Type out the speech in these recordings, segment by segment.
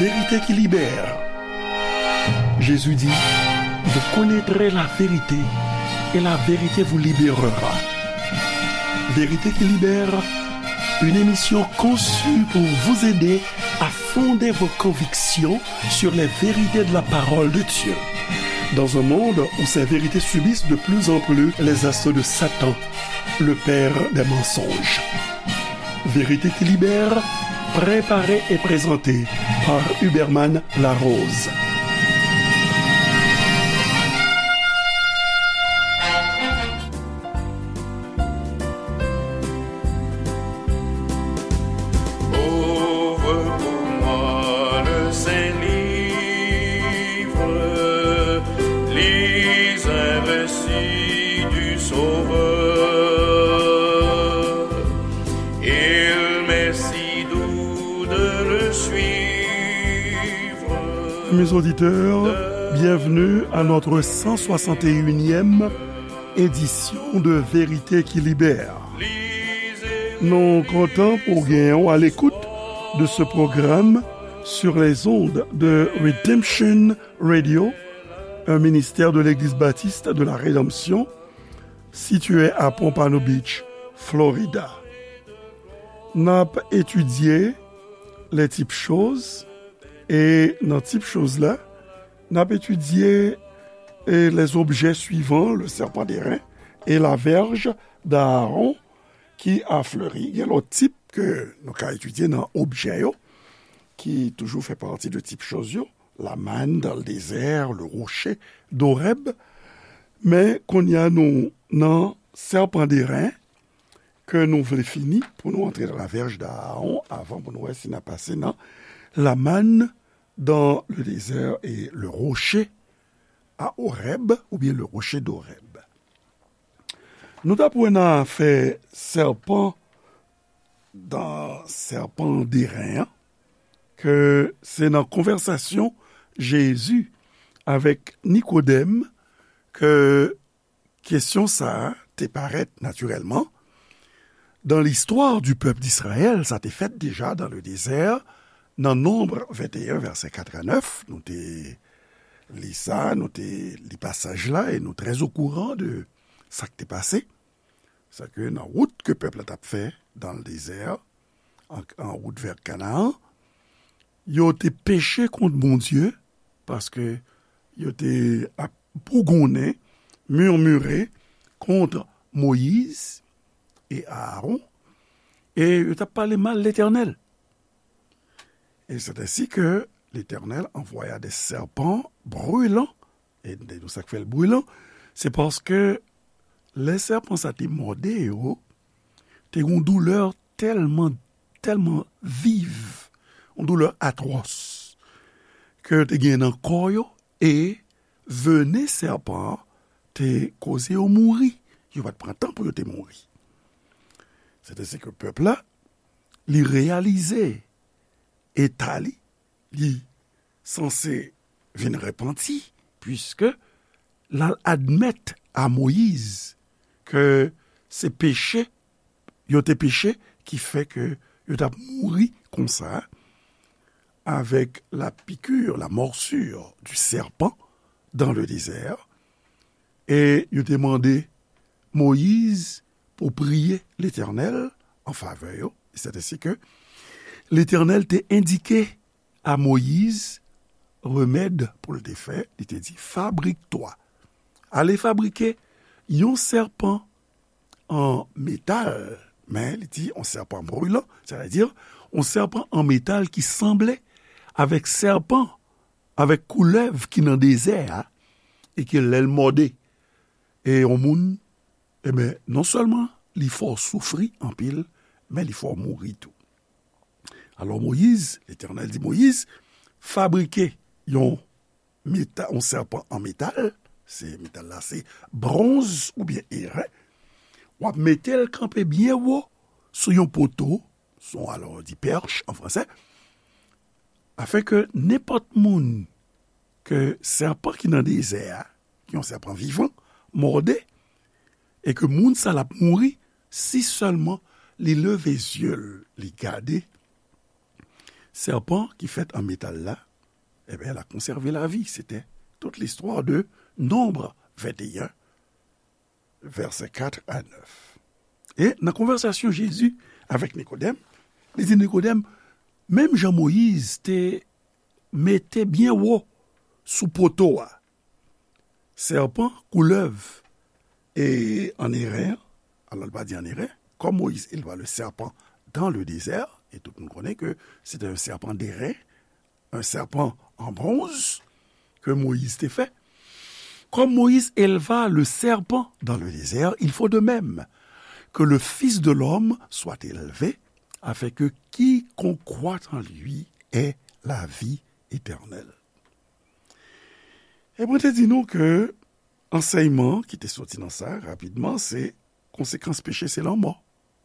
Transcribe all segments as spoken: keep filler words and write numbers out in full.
Vérité qui libère. Jésus dit, vous connaîtrez la vérité et la vérité vous libérera. Vérité qui libère, une émission conçue pour vous aider à fonder vos convictions sur les vérités de la parole de Dieu. Dans un monde où ces vérités subissent de plus en plus les assauts de Satan, le père des mensonges. Vérité qui libère, préparé et présenté par Huberman Larose. Ouvre pour moi le Saint-Livre, lis un récit du Sauveur. Il m'est si doux de le suivre. Mes auditeurs, bienvenue à notre cent soixante et unième édition de Vérité qui libère. Nou kontan pou genyen w à l'écoute de ce programme sur les ondes de Redemption Radio, un ministère de l'Église baptiste de la Rédemption, située à Pompano Beach, Florida. N ap etidye les types choses, e nan tip choz la, n ap etidye, e, les objets suivants, le serpent d'airain et la verge d'Aaron qui a fleuri. Gen lòt tip ke nou ka etidye nan objè yo, ki toujou fè pati de tip choz yo. La manne dans le désert, le rocher d'Horeb. Men kounye a nou nan serpent d'airain ke nou vle fini pou nou antre dans la verge d'Aaron avan pou nou wè si n a pase nan la manne dans le désert et le rocher à Horeb, oubyen le rocher d'Horeb. Nou t ap wè nan afè sèpan, dan sèpan deren an, ke se nan konvèsasyon Jezi avèk Nikodèm ke kesyon sa a te parèt natirèlman. Dans l'histoire du peuple d'Israël, sa te fèt deja dans le désert, nan Nonb venteyen, vèsè kat a nèf, nou te li sa, nou te li pasaj la, e nou trè okouran de sa k te pase. Sa ke nan wout ke pèp la t ap fè dans le désert, an, an wout vè Kanaan, yo te peche kont Bondye, paske yo te ap bougonnen, murmure kont Moyiz e Aaron, e yo t ap pale mal Letènèl. Et c'est ainsi que l'Éternel envoya des serpents brûlants. E nou sa k fè l brilan, se paske lè sèpan sa te mòde yo, te gen yon doulè tèlman, tèlman viv, yon doulè atwòs, ke yo te gen nan kò yo, e venen sèpan an te koze yo mouri. Yo pa t pran tan pou yo te mouri. Se te se ke pèp la, li reyalize eta li, li sanse vin repanti, piske l al admèt a Moyiz ke se peche, yo te peche, ki fè ke yo t ap mouri konsa, avec la piqûre, la morsure du serpent dans le désert. E yo te mande Moyiz pou priye Letènèl an favè yo. E se te si ke Letènèl te endike a Moyiz remèd pou l te fè, li te di, fabrique-toi, ale fabrike yon sèpan an metal, men li di yon sèpan brilan, sètadi yon sèpan an metal ki sanble avèk sèpan, avèk koulèv ki nan dezè a, e ke lè l mòde e yon moun, ebyen, non sèlman li fè w soufri anpil, men li fè w mouri tou. Alò, Moyiz, Letènèl di Moyiz, fabrike yon meta-, yon sèpan an metal, se metal la, se bwonz oubyen eren, w ap mete l kanpe byen wo sou yon poto, sou, alò, di perche an fransè, afin ke nenpòt moun ke sèpan ki nan dezè a, ki yon sèpan vivan, mòde, e ke moun sa l ap mouri si sèlman li leve zye l, li gade, sèpan ki fèt an metal la, ebyen, l a konsève lavi. Se te tout listwa de Nonb venteyen, vèsè kat a nèf. E nan konvèsasyon Jezi avèk Nikodèm, li di Nikodèm, menm jan Moyiz te mete byen wo sou poto a, sèpan, koulèv, e an Eren, alò, l pa di an Eren, comme Moïse éleva le serpent dans le désert, et tout le monde connaît que c'était un serpent d'airain, un serpent en bronze que Moïse te fè. Comme Moïse éleva le serpent dans le désert, il faut de même que le Fils de l'homme soit élevé, afin que quiconque croit en lui ait la vie éternelle. E mwen te di nou ke ansèyman ki te soti nan sa, rapidman, se konsekans peche se lanmò.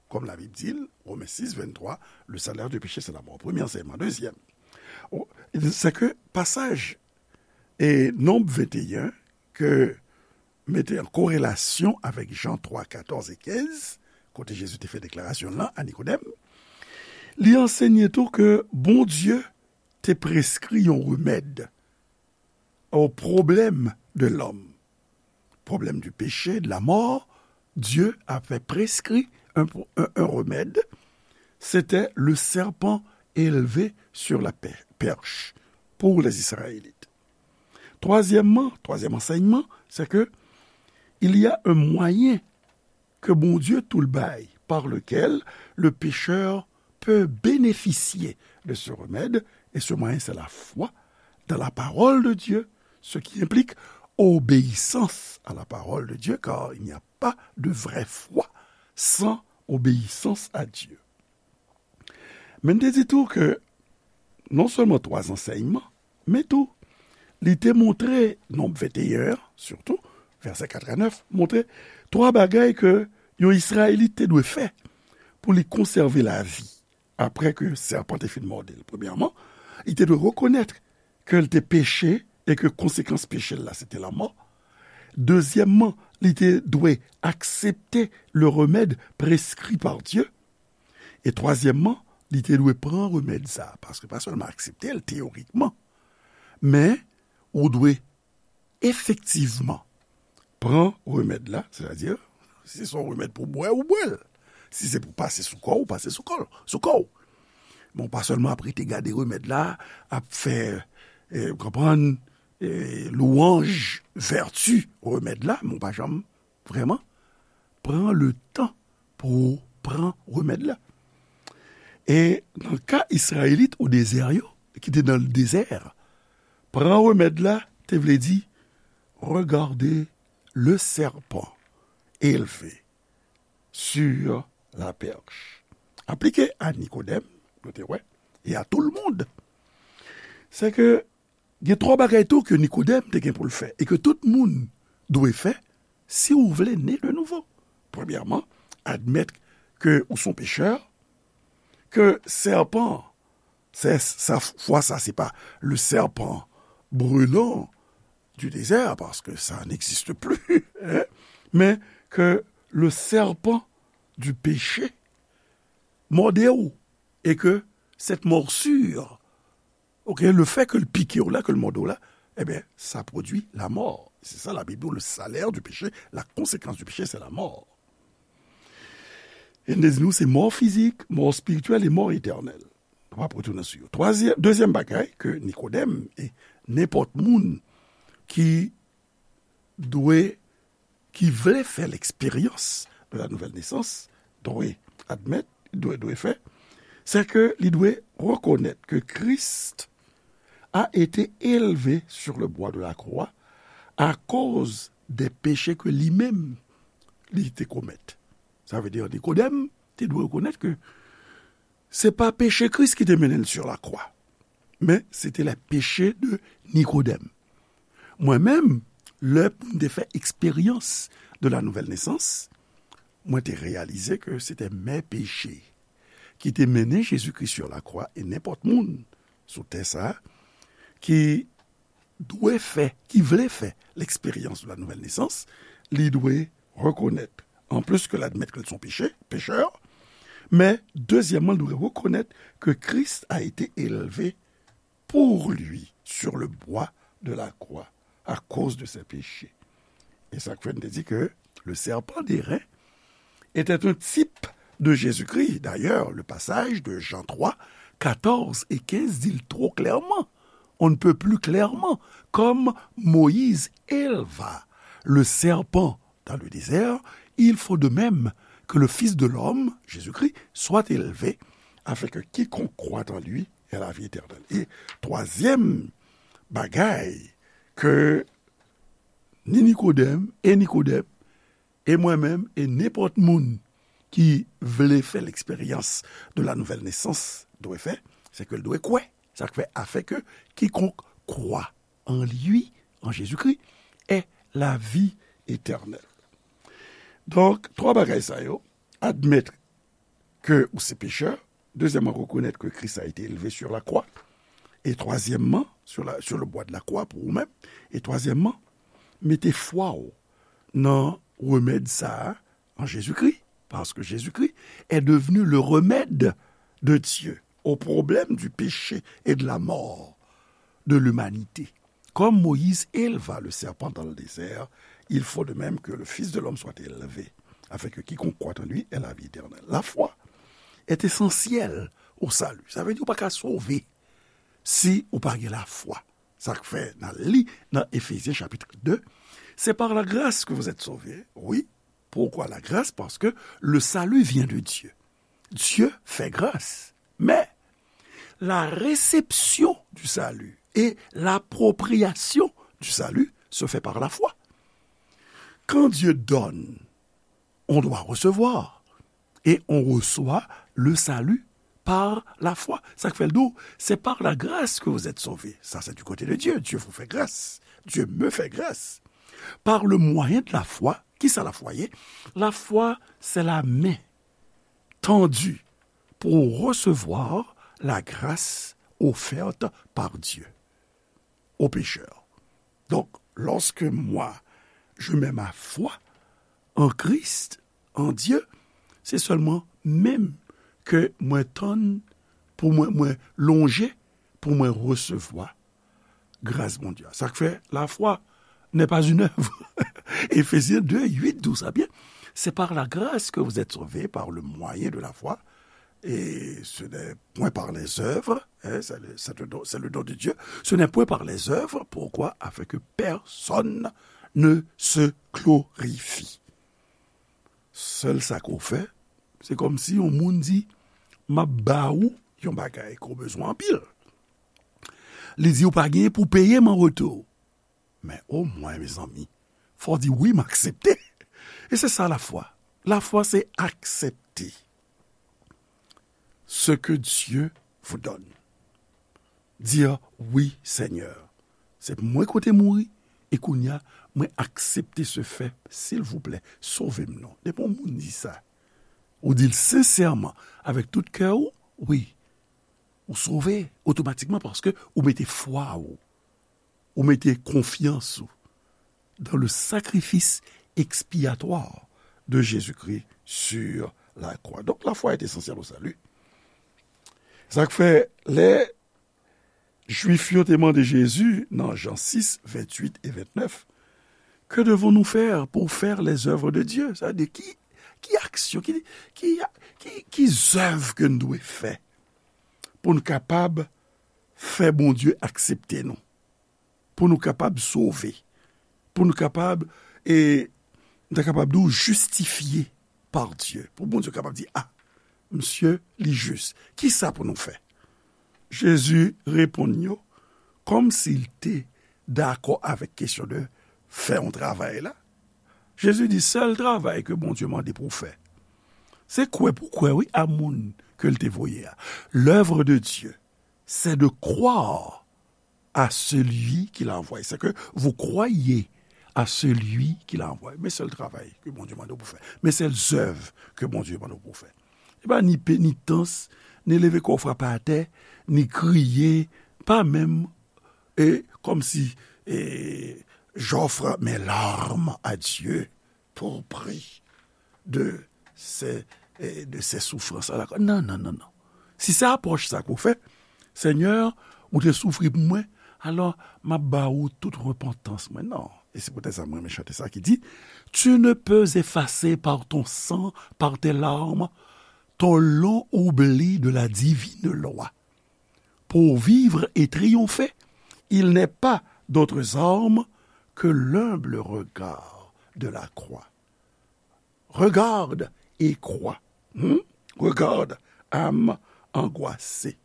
Kòm Labib di l, Women sis venntwa, le salaire du péché, c'est la mort. Premye ansèyman. Dezyèm, o, se ke pasaj e Nonb venteyen, ke mete an korelasyon avèk Jan twa, katòz e kenz, kote Jezi te fè deklarasyon lan a Nikodèm, li ansenye tou ke Bondye te preskri yon remèd o pwoblèm de lòm. Problème du péché, de la mort, Dieu avait prescrit un, un, un remède, c'était le serpent élevé sur la per-, perche pour les Israélites. Troisièmement, troisième enseignement, c'est que il y a un moyen que Bondye tou l bay, par lequel le pécheur peut bénéficier de ce remède, et ce moyen, c'est la foi dans la parole de Dieu, ce qui implique obéissance à la parole de Dieu, car il n'y a pas de vraie foi sans obéissance à Dieu. Men n te di tou ke non sèlman twa ansèyman, men tou, li te montre, Nonb venteyen an, sitou, vèsè kat a nèf, montre twa bagay ke yon Izrayelit te dwe fè pou li konsève lavi apre ke sèpan te fin mòde l. Premyèman, li te dwe rekonèt ke l te peche e ke konsekans peche l la, se te lanmò. Dezyèmman, li te dwe aksepte le remèd preskri pa Dye. E twazyèmman, li te dwe pran remèd sa a, paske pa sèlman aksepte l teyorikman, men ou dwe efektivman pran remèd la, sètadi, si se yon remèd pou bwè, ou bwè l. Si se pou pase sou kò w, ou pase sou kò, sou kò w. Men w pa sèlman ap rete gade remèd la, ap fè, eh, w konprann, eh, lwanj vèti remèd la, men w pa janm vrèman pran le tan pou w pran remèd la. E nan ka Izrayelit o dezè yo, ki te nan dezè, pran remèd la te vle di regarder le serpent élevé sur la perche. Aplike a Nikodèm, nou te wè, e a tout le monde. Se ke gen twa bagay tou ke Nikodèm te gen pou l fè e ke tout moun dwe fè si ou vle ne de nouvo. Premyèman, admèt ke ou se yon pechè, ke sèpan, se, sa, fwa sa, se pa le serpent brûlant du désert, parce que ça n'existe plus, hein, men ke le serpent du péché mòde w, e ke cette morsure, ok, le fait que l pike w la, ke l mòde w la, ebyen, sa pwodui la mort. C'est ça, la Bible dit, le salaire du péché, la conséquence du péché, c'est la mort. E n te di nou, se mò fizik, mò espirityèl e mò etènèl. Nou p ap retounen sou yo. Twazyèm, dezyèm bagay ke Nikodèm e nenpòt moun ki dwe, ki vle fè l'expérience de la nouvelle naissance, dwe admèt, dwe, dwe fè, se ke li dwe rekonèt ke Christ a été élevé sur le bois de la croix à cause des péchés que li menm li te komèt. Sa vle di, Nikodèm te dwe rekonèt ke se pa peche Kris ki te mennen l sur la croix, men se te les péchés de Nikodèm. Mwen menm, lè m te fè eksperyans de la nouvelle naissance, mwen te reyalize ke se te mes péchés ki te mennen Jezikri sur la croix, e nenpòt moun sou tè sa a ki dwe fè, ki vle fè l'expérience de la nouvelle naissance, li dwe rekonèt, anplis ke l admèt ke l se yon peche, pechè, Mais, deuxièmement, il doit reconnaître que Christ a été élevé pour lui sur le bois de la croix à cause de ses péchés. Et ça fait nous dit que le serpent d'airain était un type de Jésus-Christ. D'ailleurs, le passage de Jean trois, quatorze et quinze dit trop clairement, on ne peut plus clairement, comme Moïse éleva le serpent dans le désert, il faut de même que le Fils de l'homme, Jésus-Christ, soit élevé, afin que quiconque croit en lui ait la vie éternelle. E twazyèm bagay ke ni Nikodèm e Nikodèm e mwen menm e nenpòt moun ki vle fè l'expérience de la nouvelle naissance dwe fè, se ke l dwe kwè. Sa k fè, afin que quiconque croit en lui, en Jésus-Christ, ait la vie éternelle. Donk, twa bagay sa yo, admèt ke ou se pechè, dezyèmman, rekonèt ke Kris a ete elve sur la croix, e twazyèmman, sur la, sur le bois de la croix pou ou menm, e twazyèmman, mete fwa w nan remèd sa a an Jezikri, paske Jezikri est devenu le remède de Dieu au problème du péché et de la mort de l'humanité. Comme Moïse éleva le serpent dans le désert, il faut de même que le Fils de l'homme soit élevé, afin que quiconque croit en lui ait la vie éternelle. La foi est essentielle au salut. Sa vle di ou pa ka sove si ou pa gen lafwa. Sa k fè n al li nan Efezyen chapit de, c'est par la grâce que vous êtes sauvés. Oui, pourquoi la grâce? Parce que le salut vient de Dieu. Dieu fait grâce. Mais la réception du salut et l'appropriation du salut se fait par la foi. Quand Dieu donne, on doit recevoir. Et on reçoit le salut par la foi. Sa k fè l di w, c'est par la grâce que vous êtes sauvés. Ça, c'est du côté de Dieu. Dieu vous fait grâce. Dieu me fait grâce. Par le moyen de la foi, kisa lafwa ye? Lafwa, c'est la main tendue pour recevoir la grâce offerte par Dieu aux pécheurs. Donc, lorsque moi, je mets ma foi en Christ, en Dieu, c'est seulement menm ke mwen tann pou mwen, mwen lonje pou mwen resevwa gras Bondye a. Sa k fè, la foi n'est pas une œuvre. Éphésiens deux, huit, douze, ah bien, c'est par la grâce que vous êtes sauvés, par le moyen de la foi, et ce n'est point par les œuvres, hein, c'est le, c'est le don, c'est le don de Dieu, ce n'est point par les œuvres, pourquoi? Afin que personne ne se glorifie. Sèl sa ke w fè, se kòmsi yon moun di, m ap ba ou yon bagay ke w bezwen anpil. Li di ou pa genyen pou peye m an retou. Men omwen, mezanmi, fò w di, wi, m aksepte. E se sa lafwa. Lafwa, se aksepte ce que Dieu vous donne. Dire, oui, Seigneur, se mwen ki te mouri, e kounye a, mwen aksepte ce fait, silvouplè, sove m non. Depi yon moun di sa, ou di l sensèman, avèk tout kè w, wi, ou sove otomatikman paske ou mete fwa w, ou mete konfyans ou dans le sacrifice expiatoire de Jésus-Christ sur la croix. Donc, la foi est essentielle au salut. Sa k fè, lè Jwif yo te mande Jezi nan Jan sis, venntuit e ventnèf, que devons-nous faire pour faire les œuvres de Dieu? Sa vle di, ki, ki aksyon, ki, ki, ki, ki zèv ke n dwe fè pou n kapab fè Bondye aksepte nou? Pou nou kapab sove, pou nou kapab, e, nou ta kapab di w jistifye pa Dye. Pou Bondye kapab di, a, misye, li jis. Kisa pou nou fè? Jezi reponn yo kòmsi l te dakò avèk kesyon de fè yon travay la. Jezi di, sèl travay ke Bondye mande pou w fè, se kwè pou kwè, wi, a moun ke l te voye a. L'œuvre de Dieu, c'est de croire à celui qui l'a envoyé. C'est que vous croyez à celui qui l'a envoyé. Men sèl travay ke Bondye mande w pou fè. Men sèl zèv ke Bondye mande w pou fè. E pa ni penitans, ni leve kò w frape atè, ni kriye, pa menm, e, kòmsi, e, j'offre mes larmes à Dieu pour prix de ces eh, de ces souffrances à la croix. Non, non, non, non. Si se apwòch sa ke w fè, Senyè, ou te soufri pou mwen, alò m ap ba ou tout repantans mwen. Non. E se poutèt sa mwen renmen chante sa ki di, Tu ne peux effacer par ton sang, par tes larmes, ton long oubli de la divine loi. Pour vivre et triompher, il n'est pas d'autres armes que l'humble regard de la croix. Regarde et crois. Hmm? Regarde, âme angoissée.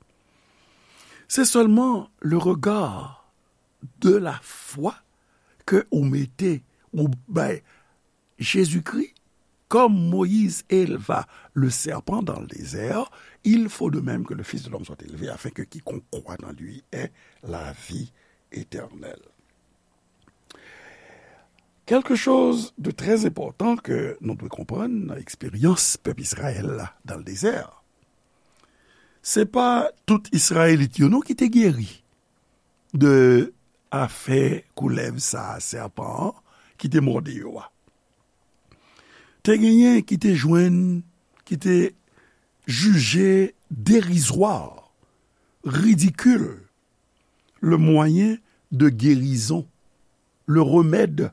Se sèlman le regard de la foi ke ou mete, ou bay Jezikri, comme Moïse éleva le serpent dans le désert, il faut de même que le Fils de l'homme soit élevé, afin que quiconque croit en lui ait la vie éternelle. Quelque chose de très important ke nou dwe konprann nan eksperyans pèp Izrayèl la dans le désert, se pa tout Izrayelit yo non ki te geri de afè koulèv sa a, sèpan an, ki te mòde yo a. Te genyen ki te jwenn, ki te jije derizwa, ridikil, le moyen de guérison, le remède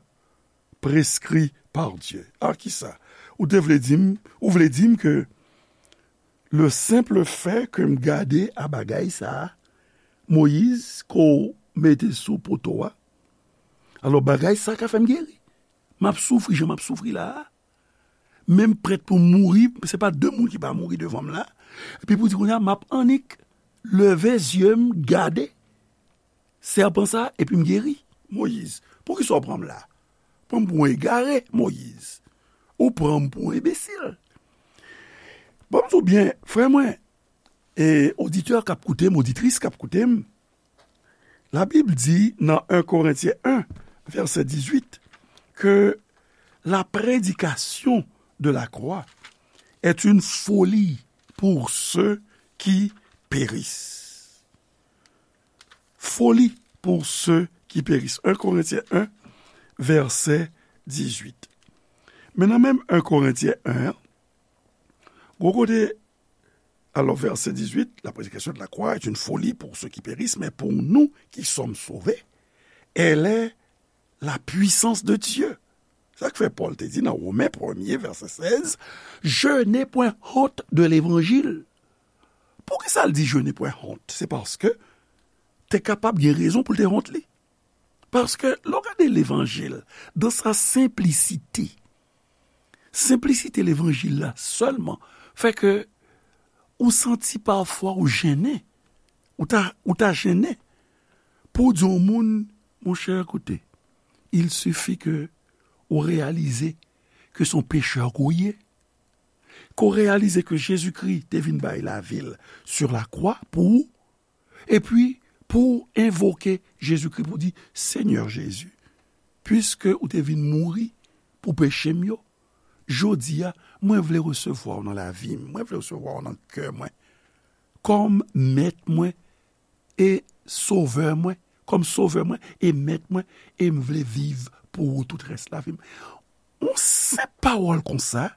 prescrit par Dieu. A kisa? Ou te vle di m, ou vle di m ke le simple fait ke m gade a bagay sa a, Moyiz, ke w mete sou poto a, alò bagay sa a ka fè m geri. M ap soufri jan m ap soufri la a. Men m prèt pou m mouri, se pa de moun ki pa mouri devan m la. Epi pou di kounye a, m ap annik leve zye m gade sèpan sa, epi m geri. Moyiz, poukisa w pran m la? Pran m pou yon egare, Moyiz. Ou pran m pou yon enbesil. Ban m di w byen, frè mwen, e oditè k ap koute m, oditris k ap koute m, Labib di nan en Korentyen en, vèsè dizuit, ke la prédication de la croix est une folie pour ceux qui périssent. Folie pour ceux qui périssent. En Korentyen en, vèsè dizuit. Men nan menm en Korentyen en an, gwo kote, alors, verset dix-huit, la prédication de la croix est une folie pour ceux qui périssent, mais pour nous qui sommes sauvés, elle est la puissance de Dieu. Sa k fè Pòl te di nan Women premye, vèsè sèz, Je n'ai point honte de l'évangile. Poukisa l di je n'ai point honte? Se paske te kapab gen rezon pou l te wont li. Paske lè w gade levanjil, dans sa simplicité, senplisite levanjil la sèlman fè ke ou santi pafwa ou jennen, ou ta, ou ta jennen pou w di yon moun, monchè, koute, il suffit ke ou reyalize ke se yon pechè ke w ye, ke w reyalize ke Jezikri te vin bay lavi l sur la croix pou ou, epi pou w envoke Jezikri, pou w di, Senyè Jezi, piske ou te vin mouri pou peche m yo, jodi a, mwen vle resevwa w nan lavi m, mwen vle resevwa w nan kè mwen, kòm mèt mwen e sovè mwen, kòm sovè mwen e mèt mwen, e m vle viv pou ou tout rès lavi m. Yon senp pawòl konsa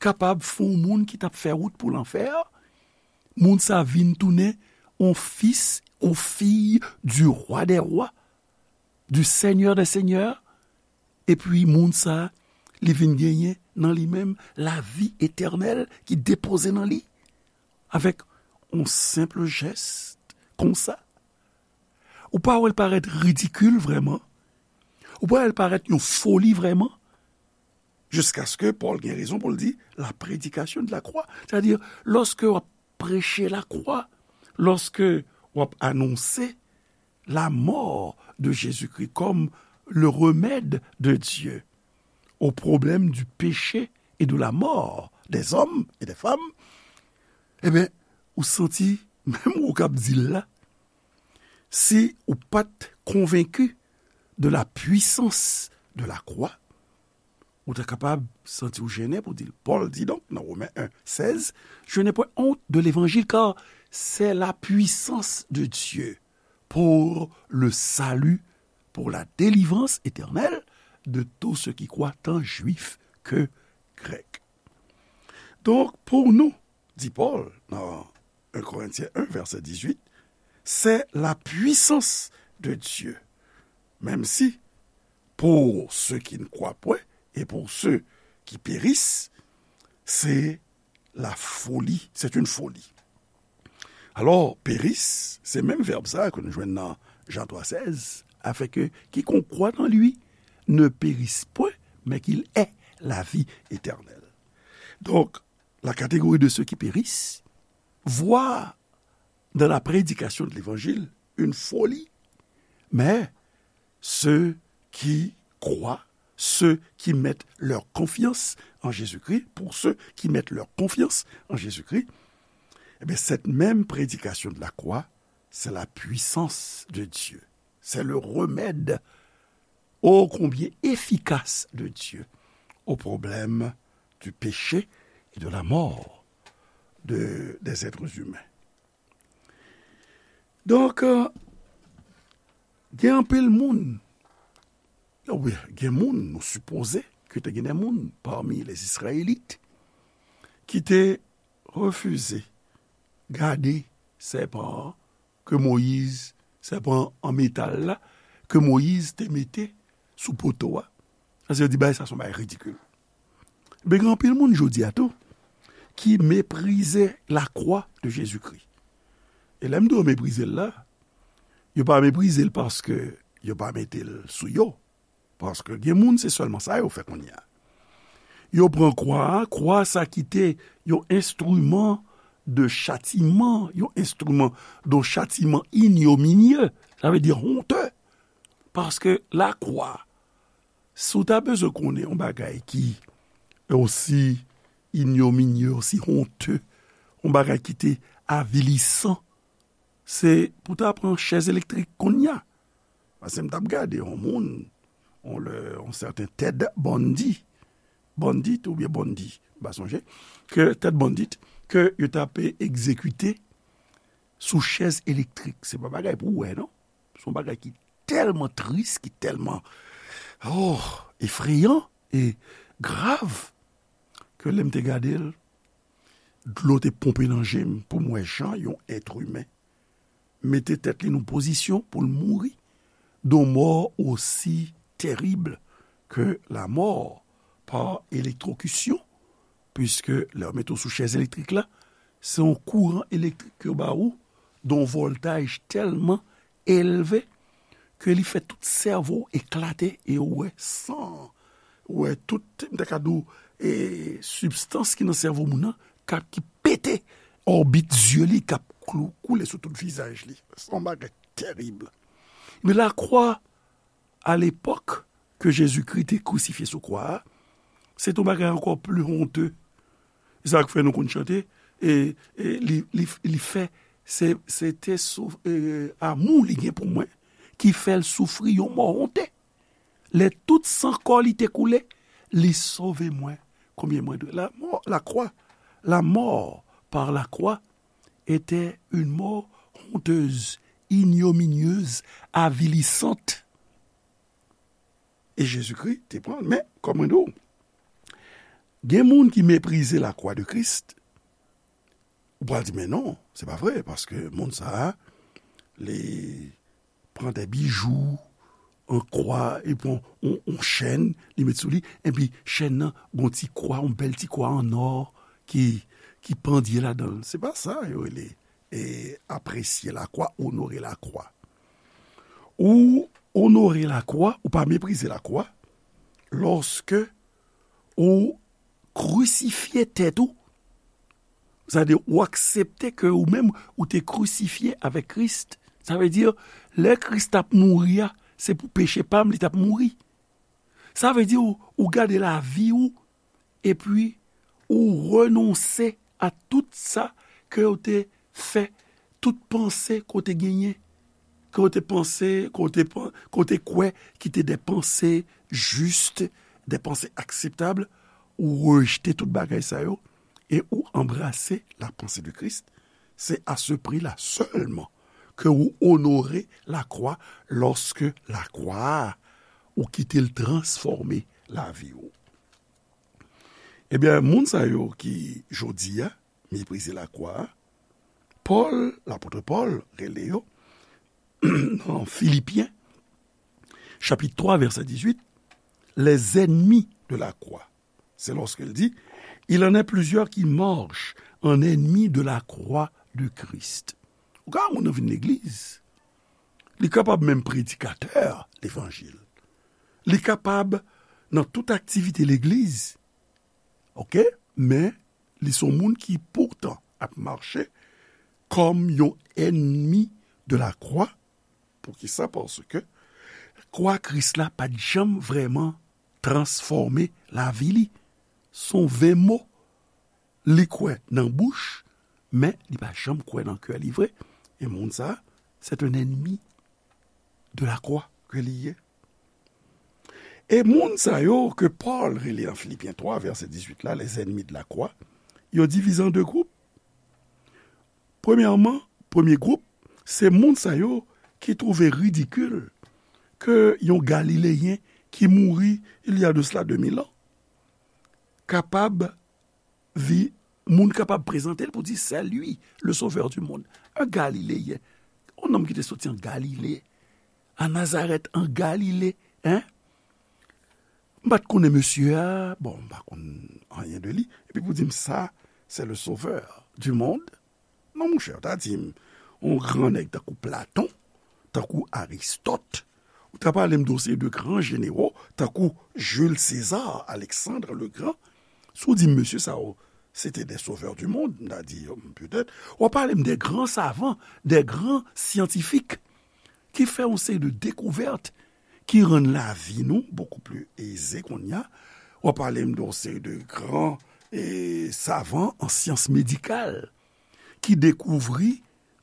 kapab fè yon moun ki t ap fè wout pou lanfè, moun sa vin tounen yon fis, yon fiy du Roi des rois, du Seigneur des seigneurs, epi moun sa, li vin genyen nan li menm lavi etènèl ki depoze nan li, avèk yon senp jès konsa. Ou pa wè l parèt ridikil vrèman? Ou pa wè l parèt yon foli vrèman? Jiskaske Pòl gen rezon pou l di, la prédication de la croix. Sètadi, lòske w ap preche lakwa, lòske w ap anonse la mort de Jésus-Christ comme le remède de Dieu au problème du péché et de la mort des hommes et des femmes, ebyen, ou santi, menm ou k ap di l la, si ou pa t konvenki de la puissance de la croix, ou ta kapab santi w jennen pou di l. Pòl di donk nan Women en sèz, Je n'ai point honte de l'évangile, car c'est la puissance de Dieu pour le salut, pour la délivrance éternelle de tous ceux qui croient, tant juifs que grecs. Donk, pou nou, di Pòl nan un Corinthiens un, verset dix-huit, c'est la puissance de Dieu. Menm si, pour ceux qui ne croient point et pour ceux qui périssent, c'est la folie, c'est une folie. Alò, péris, se menm vèb sa ke nou jwenn nan Jean trois seize, afin que quiconque croit en lui ne périsse point, mais qu'il ait la vie éternelle. Donc, la catégorie de ceux qui périssent voit dans la prédication de l'évangile une folie, mais ceux qui croient, ceux qui mettent leur confiance en Jésus-Christ, pour ceux qui mettent leur confiance en Jésus-Christ, eh bien, cette même prédication de la croix, c'est la puissance de Dieu. C'est le remède ô combien efficace de Dieu au problème du péché et de la mort de, des êtres humains. Donk, euh, gen anpil moun, wi, gen moun, nou sipoze ke te gen de moun pami les Israélites ki te refize gade sèpan an ke Moyiz, sèpan an metal la, ke Moyiz te mete sou poto a. Paske yo di, bagay sa se yon bagay ridikil. Men gen anpil moun jodi a tou ki meprize lakwa de Jezikri. E lè m di yo meprize l la, yo pa meprize l paske yo pa mete l sou yo. Paske gen moun, se sèlman sa yo fè kounye a. Yo pran kwa a, kwa sa ki te yon enstriman de chatiman, yon enstriman de chatiman ignominieux, sa vle di honte. Paske lakwa, si w ta bezwen konnen yon bagay ki osi ignominieux, osi honte, yon bagay ki te avilisan, se pou ta pran chèz elektrik kounye a. Paske m t ap gade yon moun, yon lè, yon sèten Ted Bundy, Bundy oubyen Bundy, m pa sonje, ke Ted Bundy, ke yo t ap egzekite sou chèz elektrik. Se pa bagay pou w wè, non. Se yon bagay ki tèlman tris, ki tèlman, oh, efreyan e grav, ke lè m te gade l, dlo te ponpe nan je m pou m wè jan yon èt imen mete tèt li nan pozisyon pou l mouri, de mò osi tèrib ke lamò pa elektwokisyon, piske lè yo mete w sou chèz elektrik la, se yon kouran elektrik ke yo ba ou, de yon vòltaj tèlman elve ke li fè tout sèvo w eklate e ou wè san, ou wè tout, m ta ka di w, e, sibstans ki nan sèvo moun nan k ap, ki pete òbit zye li, k ap klou, koule sou tout vizaj li. Se yon bagay tèrib. Men lakwa, a lepòk ke Jezikri te krisifye sou kwa a, se te yon bagay ankò pli honte. E sa k fè nou konn chante, e, e li, li, li fè, se, se te sou, e, amou li gen pou mwen, ki fè l soufri yon mò honte. Lè tout san kò li te koule, li sove mwen. Konbyen mwen dwe? La mort, la croix, la mort par la croix était une mort honteuse, ignominieuse, avilissante. E Jezikri te pran l. Men, kòm mwen di w, gen moun ki meprize lakwa de Kris. Ou pral di, men non, se pa vre, paske moun sa a, li pran de bijou an kwa, li pran yon, yon chèn, li met sou li, epi chèn nan, gon ti kwa, yon bèl ti kwa an nò ki, ki pandye ladan l. Se pa sa yo rele, e, apresye lakwa, onore lakwa. Ou onore lakwa, ou pa meprize lakwa, lòske ou krisifye tèt ou, sa vle di ou aksepte ke ou menm ou te krisifye avèk Kris. Sa vle di, lè Kris t ap mouri a, se pou peche pa m li t ap mouri. Sa vle di ou, ou gade lavi ou, epi ou renonse a tout sa ke ou te fè, tout panse ke ou te genyen, ke ou te panse, ke ou te pan-, ke ou te kwè ki te de panse jis, de panse akseptab, ou rejte tout bagay sa yo, e ou anbrase la pensée de Christ. Se a se pri la sèlman ke ou onore lakwa, lòske lakwa a, ou kite l transfòme lavi ou. Ebyen, moun sa yo ki, jodi a, meprize lakwa a, Pòl, lapòt Pòl, rele yo, nan Filipyen, chapit twa, vèsè dizuit, les ennemis de la croix. C'est lorsqu'il dit, il en est plusieurs qui marchent en ennemis de la croix de Christ. Ou ka wè moun nan vin legliz. Li kapab menm predikatè levanjil. Li kapab nan tout aktivite legliz. Oke? Men, li se yon moun ki poutan ap mache kòm yon enmi de la croix. Poukisa? Paske kwa Kris la pa t janm vrèman transfòme lavi li. Se yon ven mo. Li kwè nan bouch, men li pa janm kwè nan kè li vre. E moun sa, c'est un ennemi de la croix ke li ye. E moun sa yo ke Pòl rele nan Filipyen twa, vèsè dizuit la, les ennemis de la croix, yo divize an de gwoup. Premyèman, premye gwoup, se moun sa yo ki twouve ridikil ke yon Galileyen ki mouri il y a de cela deux mille ans kapab vi, moun kapab prezante l pou di, c'est lui, le sauveur du monde. Un Galiléen. Yon nonm ki te soti an Galile, an Nazarèt, an Galile, hein? M pa t konnen mesye a, bon, m pa konn anyen de li. Epi pou di m sa, c'est le sauveur du monde. Non, monchè, w ta di m, yon gran nèg tankou Platon, tankou Aristòt, ou ta pale m de yon seri de gran jenero, tankou Jules César, Alexandre le Grand. Si w di m, mesye sa yo, se te des sauveurs du monde, m ta di, petèt. W ap pale m de gran savan, de gran syantifik, ki fè yon seri de dekouvèt ki rann lavi nou bokou pli eze kounye a. W ap pale m de yon seri de gran, e, savan an syans medikal ki dekouvri,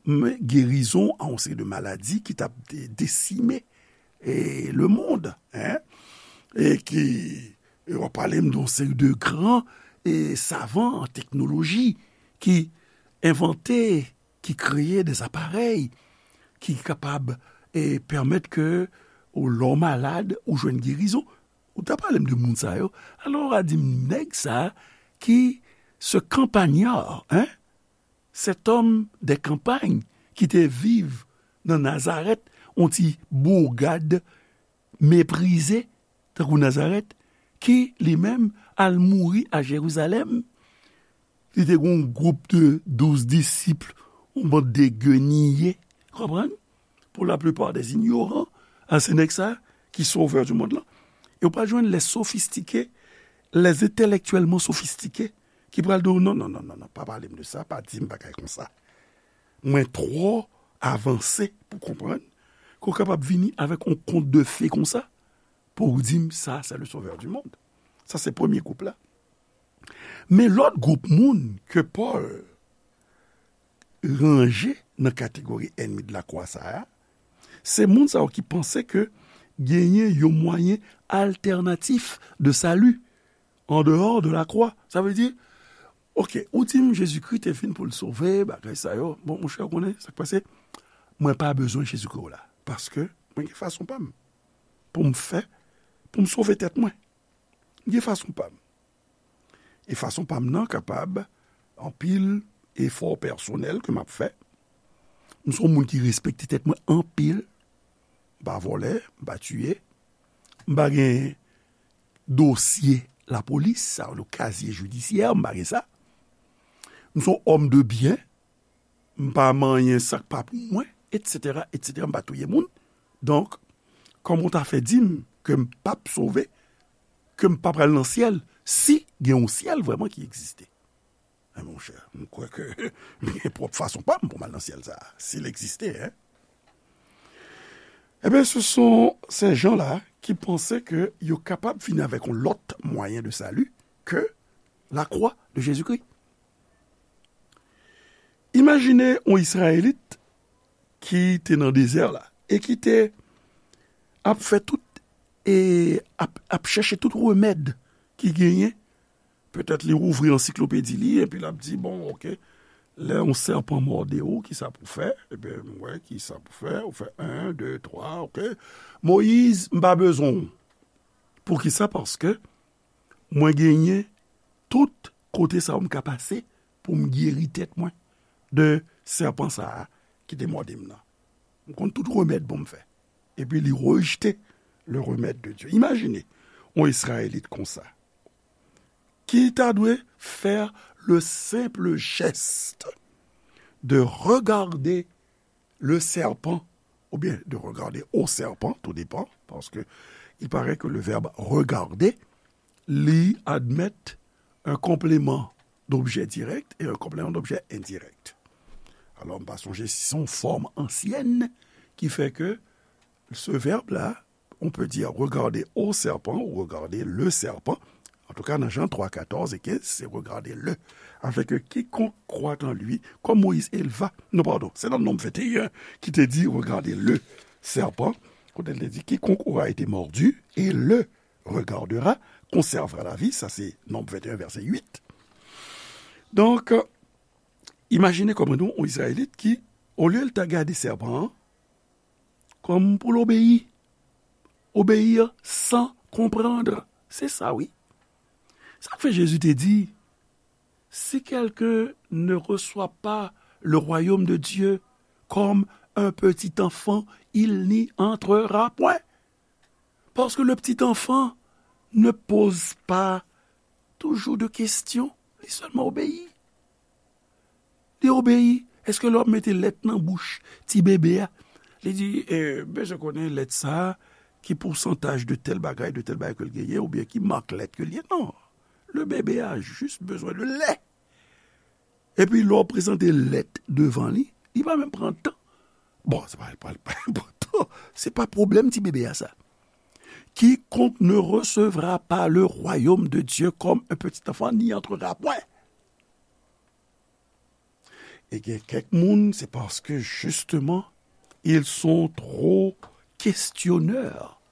men, gerizon a yon seri de maladi ki t ap de-, desime, e, lemonn, hein? E ki, e w ap pale m de yon seri de gran, e, savan an teknoloji ki envante, ki kreye de aparèy ki kapab, e, pèmèt ke ou, lè w malad, ou jwenn gerizon. Ou ta pale m de moun sa yo. Alò, w a di m, nèg sa ki, ce campagnard, hein? Cet homme de campagne ki te viv nan Nazarèt, yon ti bourgade meprize, tankou Nazarèt, ki li menm al mouri a Jerizalèm. Li te gen yon gwoup de douz disip, yon bann de geniye, konprann? Pour la plupart des ignorants, a se nèg sa ki sauveur du monde lan. E w pral jwenn les sophistiqués, les intellectuellement sophistiqués, ki pral di w, non, non, non, non, non, pa pale m de sa, pa di m bagay konsa. Mwen twò avanse pou konprann ke w kapab vini avèk yon kont de fe konsa pou w di m sa, c'est le sauveur du monde. Sa se premye gwoup la. Men lòt gwoup moun ke Pòl ranje nan kategori enmi de la croix sa a, se moun sa yo ki panse ke genyen yon mwayen altènatif de sali an dehò de la croix. Sa vle di, oke, ou di m Jezikri te vin pou l sove, bagay sa yo. Bon, monchè, ou konnen sa k pase? Mwen pa bezwen Jezikri w la. Paske mwen gen fason pa m pou m fè, pou m sove tèt mwen. M gen fason pa m. E fason pa m nan kapab anpil efò pèsonèl ke m ap fè. M se yon moun ki respekte tèt mwen anpil. M pa vòlè, m pa tiye. M pa gen dosye lapolis, sa yo rele kazye jidisyè, m pa gen sa. M se yon òm de byen, m pa manyen sa k pa pou mwen, etsetera, etsetera, m pa touye moun. Donk, kòman w ta fè di m ke m p ap sove, ke m pa pral nan syèl, si gen yon syèl vrèman ki egziste? Men monchè, m kwè ke m gen pwòp fason pa m pou m al nan syèl sa a, si l egziste, hein. Ebyen, ce sont ces gens-là qui pensaient que yo kapab vini avèk yon lòt mwayen de sali ke la croix de Jésus-Christ. Imajine yon Izrayelit ki te nan dezè la e ki te ap fè tout, e ap, ap chèche tout remèd ki genyen. Petèt li ouvri ansiklopedi li epi l ap di, bon, oke, lè yon sèpan mòde w, kisa pou fè? Ebyen, m wè kisa pou fè. Ou fè en, de, twa, oke. Moyiz, m pa bezwen w. Poukisa? Paske mwen genyen kote sa yo m ka pase pou m geri tèt mwen de sèpan sa a ki te mòde m nan. M konn tout remèd pou m fè. Epi li rejte le remèd de Dye. Imajine yon Izrayelit konsa, ki ta dwe fè le senp jès de regade le serpent, oubyen de regarder au serpent, tout dépend, parce que il paraît que le verbe regarder, li admèt un complément d'objet direct et un complément d'objet indirect. Alò, m pa sonje si se yon fòm ansyèn ki fè ke ce verbe-là, on peut dire regarder au serpent ou regarder le serpent. En tout cas, dans Jean trois, quatorze et quinze, c'est regarder le. Afin que quiconque croit en lui, comme Moïse éleva, non, pardon, c'est dans Nombre vingt et un qui te dit regarder le serpent. Kote l te di, quiconque aura été mordu et le regardera conservera la vie. Sa se Nonb venteyen, vèsè uit. Donk, imajine kòm nou, yon Izrayelit ki, olye l ta gade sèpan an, kòm pou l obeyi. Obéir sans comprendre. Se sa, wi. Sa k fè Jezi te di, si quelqu'un ne reçoit pas le royaume de Dieu comme un petit enfant, il n'y entrera point. Parce que le petit enfant ne pose pas toujours de questions, li sèlman obeyi. Li obeyi. Èske lè w ap mete lèt nan bouch ti bebe a, li di, eh, bezwen konnen lèt sa a, ki pousantaj de tèl bagay, de tèl bagay ke l genyen, oubyen ki mak lèt ke l ye? Non. Le bebe a jis bezwen de lè. Epi lè w prezante lèt devan li, li pa menm pran tan. Bon, se pa, pa, pa enpòtan. Se pa pwoblèm ti bebe a sa. Quiconque ne recevra pas le royaume de Dieu comme un petit enfant n'y entrera point. E gen kèk moun, se paske, justement, ils sont trop questionneurs.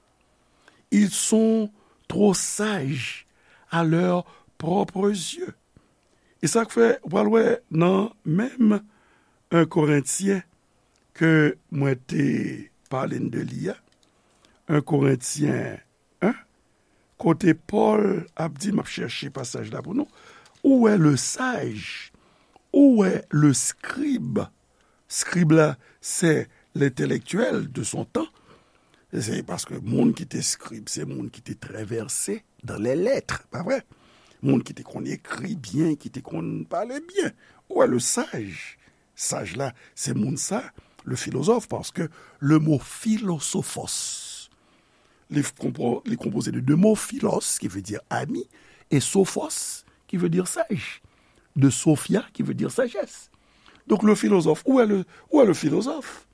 Ils sont trop sages à leurs propres yeux. E sa k fè, ou pral wè nan menm un Korentyen ke mwen te pale n de li a, un Korentyen en, kote Pòl ap di, m ap chèche pasaj la pou nou, où est le sage? Où est le scribe? Scribe la, c'est l'intellectuel de son temps. Se paske moun ki te scribe, se moun ki te très versé dans les lettres, pa vre? Moun ki te konn ekri byen, ki te konn pale byen. Où est le sage? Saj la, se moun sa, le philosophe, paske le mo philosophos, li konpo-, li konpoze de de mo, philos, ki vle di ami, e sophos, ki vle di saj, de sophia, ki vle di sajès. Donk, le philosophe, où est le, où est le philosophe?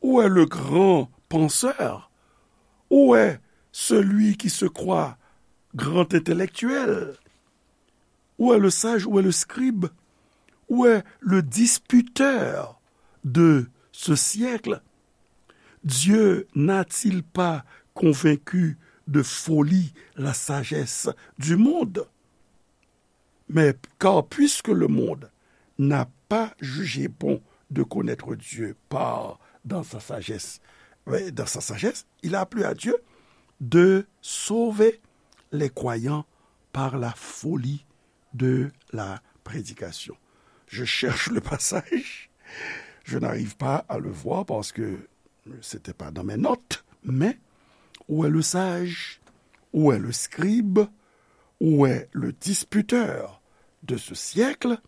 Où est le grand penseur? Où est celui qui se croit grand intellectuel? Où est le sage? Où est le scribe? Où est le disputeur de ce siècle? Dieu n'a-t-il pas convaincu de folie la sagesse du monde? Mais car puisque le monde n'a pas jugé bon de connaître Dieu par, dans sa sagesse, ouais, dans sa sagesse, il a plu à Dieu de sauver les croyants par la folie de la prédication. Je cherche le passage, je n'arrive pas à le voir parce que c'était pas dans mes notes, mais où est le sage? Où est le scribe? Où est le disputeur de ce siècle?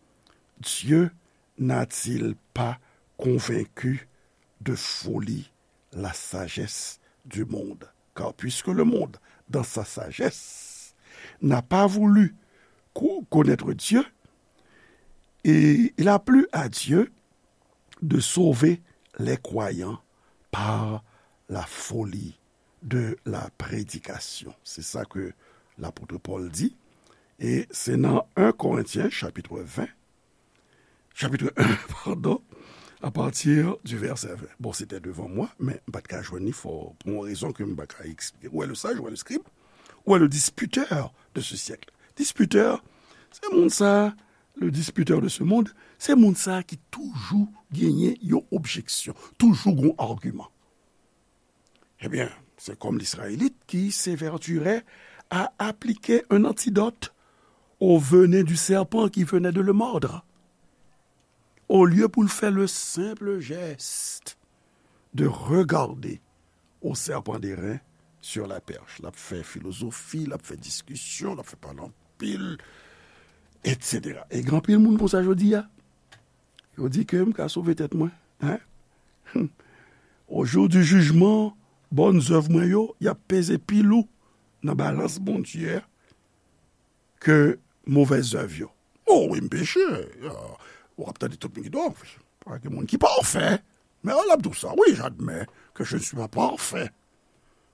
Dieu n'a-t-il pas convaincu de folie la sagesse du monde? Car puisque le monde, dans sa sagesse, n'a pas voulu co-, connaître Dieu, et il a plu à Dieu de sauver les croyants par la folie de la prédication. Se sa ke lapot Pòl di. E se nan un Korentyen, chapit ven, chapit un, pardon, à partir du verset vingt. Bon, se te devan mwen, men m pa t ka jwenn li, fò, pou yon rezon ke m pa ka eksplike. Où est le sage, où est le scribe, où est le disputeur de ce siècle? Disputeur, se moun sa, le disputeur de ce monde, se moun sa ki toujou genyen yon objeksyon, toujou gon agiman. Ebyen, se kòm Lizrayelit ki s'évertuerait à appliquer un antidote au venin du serpent qui venait de le mordre. Olye pou l fè le simple geste de regarder au serpent d'airain sur la perche. L ap fè filozofi, l ap fè diskisyon, l ap fè pale anpil, et cetera. E gen anpil moun konsa jodi a. Yo di ke m ka sove tèt mwen. Hein? Au jour du jugement, bòn zèv mwen yo, y ap peze pi lou nan balans Bondye a ke movèz zèv yo. O wi, m peche. Ah, w ap tande tout moun ki di, o, pa gen moun ki pafè. Men l ap di w sa, wi, j'admets que je ne suis pas parfait.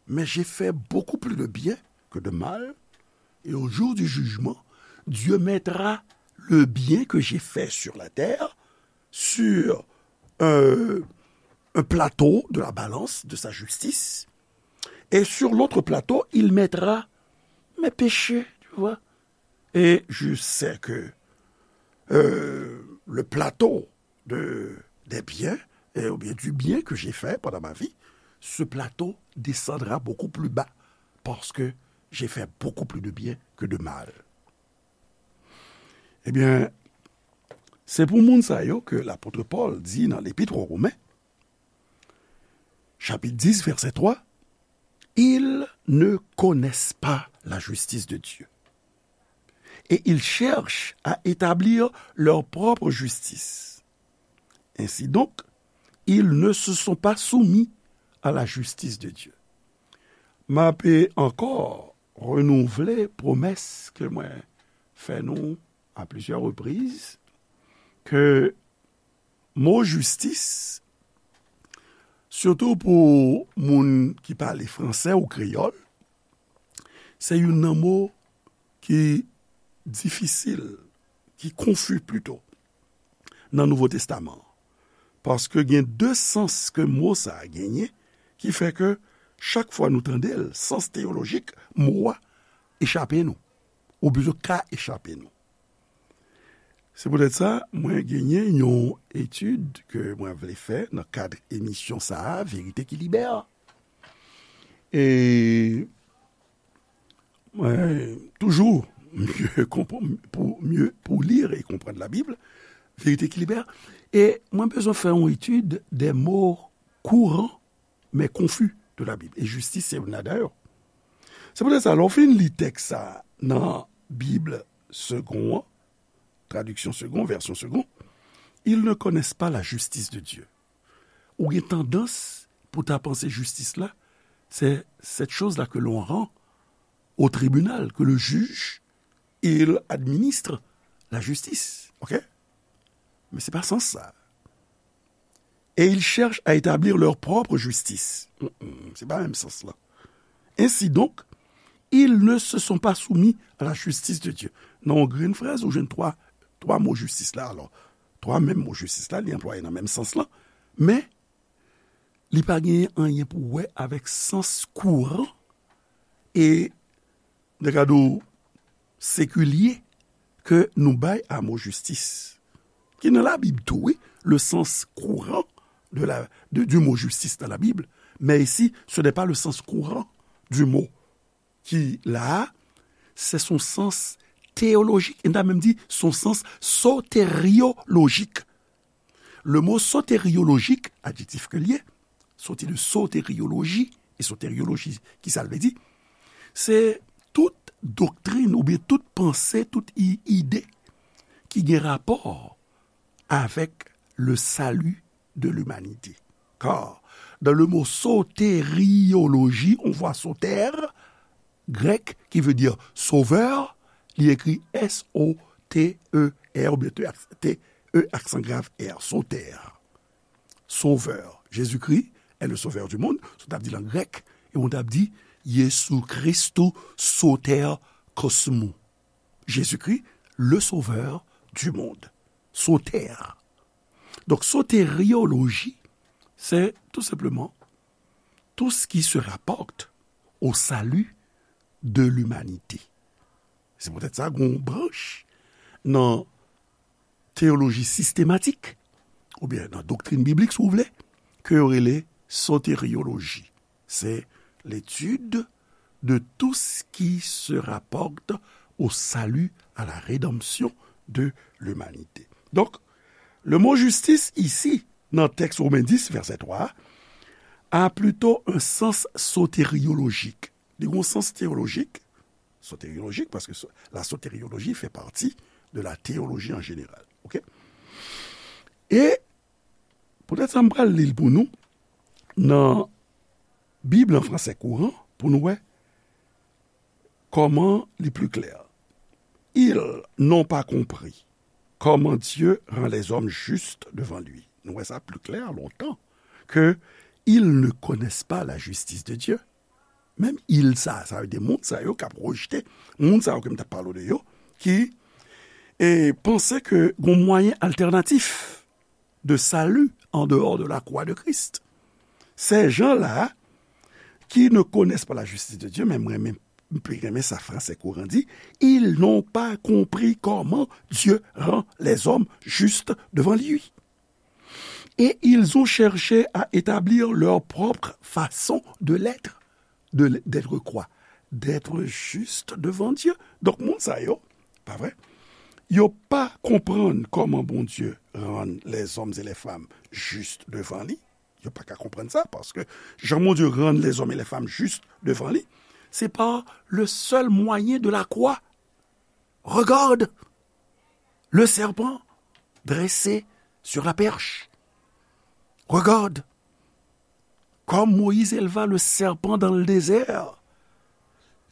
Mais j'ai fait beaucoup plus de bien que de mal. Et au jour du jugement, Dieu mettra le bien que j'ai fait sur la terre sur un, un plateau de la balance de sa justice. Et sur l'autre plateau, il mettra mes péchés, tu vois. Et je sais que euh, le plateau de, des biens, euh, ou bien du bien que j'ai fait pendant ma vie, ce plateau descendra beaucoup plus bas parce que j'ai fait beaucoup plus de bien que de mal. Ebyen, se pou moun sa yo ke lapot Pòl di nan Lepit aux Romains, chapitre dix, verset trois, ils ne connaissent pas la justice de Dieu. Et ils cherchent à établir leur propre justice. Ainsi donc, ils ne se sont pas soumis à la justice de Dieu. M ape ankò renouvle pwomès ke mwen fè nou à plusieurs reprises, ke mo jistis, sitou pou moun ki pale fransè ou kreyòl, se youn nan mo ki difisil, ki konfi pito, nan Nouvo Testaman an. Paske gen de sans ke mo sa a genyen, ki fè ke chak fwa nou tande l, sans teyolojik mo a echape nou, oubyen ka echape nou. Se poutèt sa, mwen genyen yon etid ke mwen vle fè nan kad emisyon sa a, Verite ki Libè. E mwen toujou mye konprann, pou mye, pou lir e konprann Labib, Verite ki Libè. E mwen bezwen fè yon etid des mots courants mais confus de la Bible. E jistis se youn ladan yo. Se poutèt sa, lè w fin li tèks sa nan Bib Segond an, tradiksyon Segond, vèsyon Segond, ils ne connaissent pas la justice de Dieu. Ou gen tandans pou ta panse jistis la, c'est cette chose-là que l'on rend au tribunal, que le juge, il administre la justice. OK? Men se pa sans sa. Et ils cherchent à établir leur propre justice. Mm, mm, se pa menm sans la. Ainsi donc, ils ne se sont pas soumis à la justice de Dieu. Nan yon grenn frèz, ou jwenn twa, twa mo jistis la. Alò, twa menm mo jistis la, li anplwaye nan menm sans la. Men, li pa genyen anyen pou wè avèk sans kouran e, de kado sekilye ke nou bay a mo jistis. Ki nan Labib tou, wi, le sens courant de la, de, du mot justice dans la Bible, mais ici, ce n'est pas le sens courant du mot ki la a, se son sans teyolojik, e n ta menm di son sans soteryolojik. Le mo soteryolojik, adjektif ke l ye, soti de soteryoloji, e soteryoloji, ki sa l vle di? Se tout doktrin oubyen tout panse, tout i-, ide ki gen rapò avec le salut de l'humanité. Car dans le mot soteriologie, on voit soter, grèk, qui veut dire sauveur, li écrit S O T E R, oubyen T E, aksan grav, R, soter. Sauveur. Jésus-Christ est le sauveur du monde, sa w t ap di l an grèk, e w t ap di Yesu Christou soter kosmou. Jésus-Christ, le sauveur du monde. Soter. Donc, soteriologie, c'est tout simplement tout ce qui se rapporte au salut de l'humanité. Se poutèt sa, gon branch nan teyoloji sistematik, oubyen nan doktrin biblik, si w vle, ke yo rele soterioloji. C'est l'étude de tout ce qui se rapporte au salut, à la rédemption de l'humanité. Donk, le mo jistis isi, nan tèks Women dis, vèsè twa a, a plito un sens soteriolojik. Li gen yon sans teyolojik, soteriolojik, paske so- la soterioloji fè pati de la teyoloji an jeneral. Oke? E poutèt sa, m pral li l pou nou nan Bib an fransè kouran pou nou wè kòman li pli klè. Ils n'ont pas compris comment Dieu rend les hommes justes devant lui. Nou wè sa pli klè lontan ke ils ne connaissent pas la justice de Dieu. Menm ils sa, sa vle di moun sa yo k ap rejte, moun sa yo ke m t ap pale de yo, ki e, panse ke gon mwayen altènatif de salut en dehors de la croix de Christ. Ces gens-là qui ne connaissent pas la justice de Dieu, men mwen renmen, m pli renmen sa fransè kouran di, ils n'ont pas compris comment Dieu rend les hommes justes devant lui. Et ils ont cherché à établir leur propre façon de l'être, de l- d'être quoi? D'être juste devant Dieu. Donk, moun sa yo, pa vre? Yo pa konprann kòman Bondye rann les hommes et les femmes justes devant li. Yo pa ka konprann sa, paske jan Bondye rann les hommes et les femmes justes devant li, c'est par le seul moyen de la croix. Regarde le serpent dressé sur la perche. Regarde comme Moïse éleva le serpent dans le désert.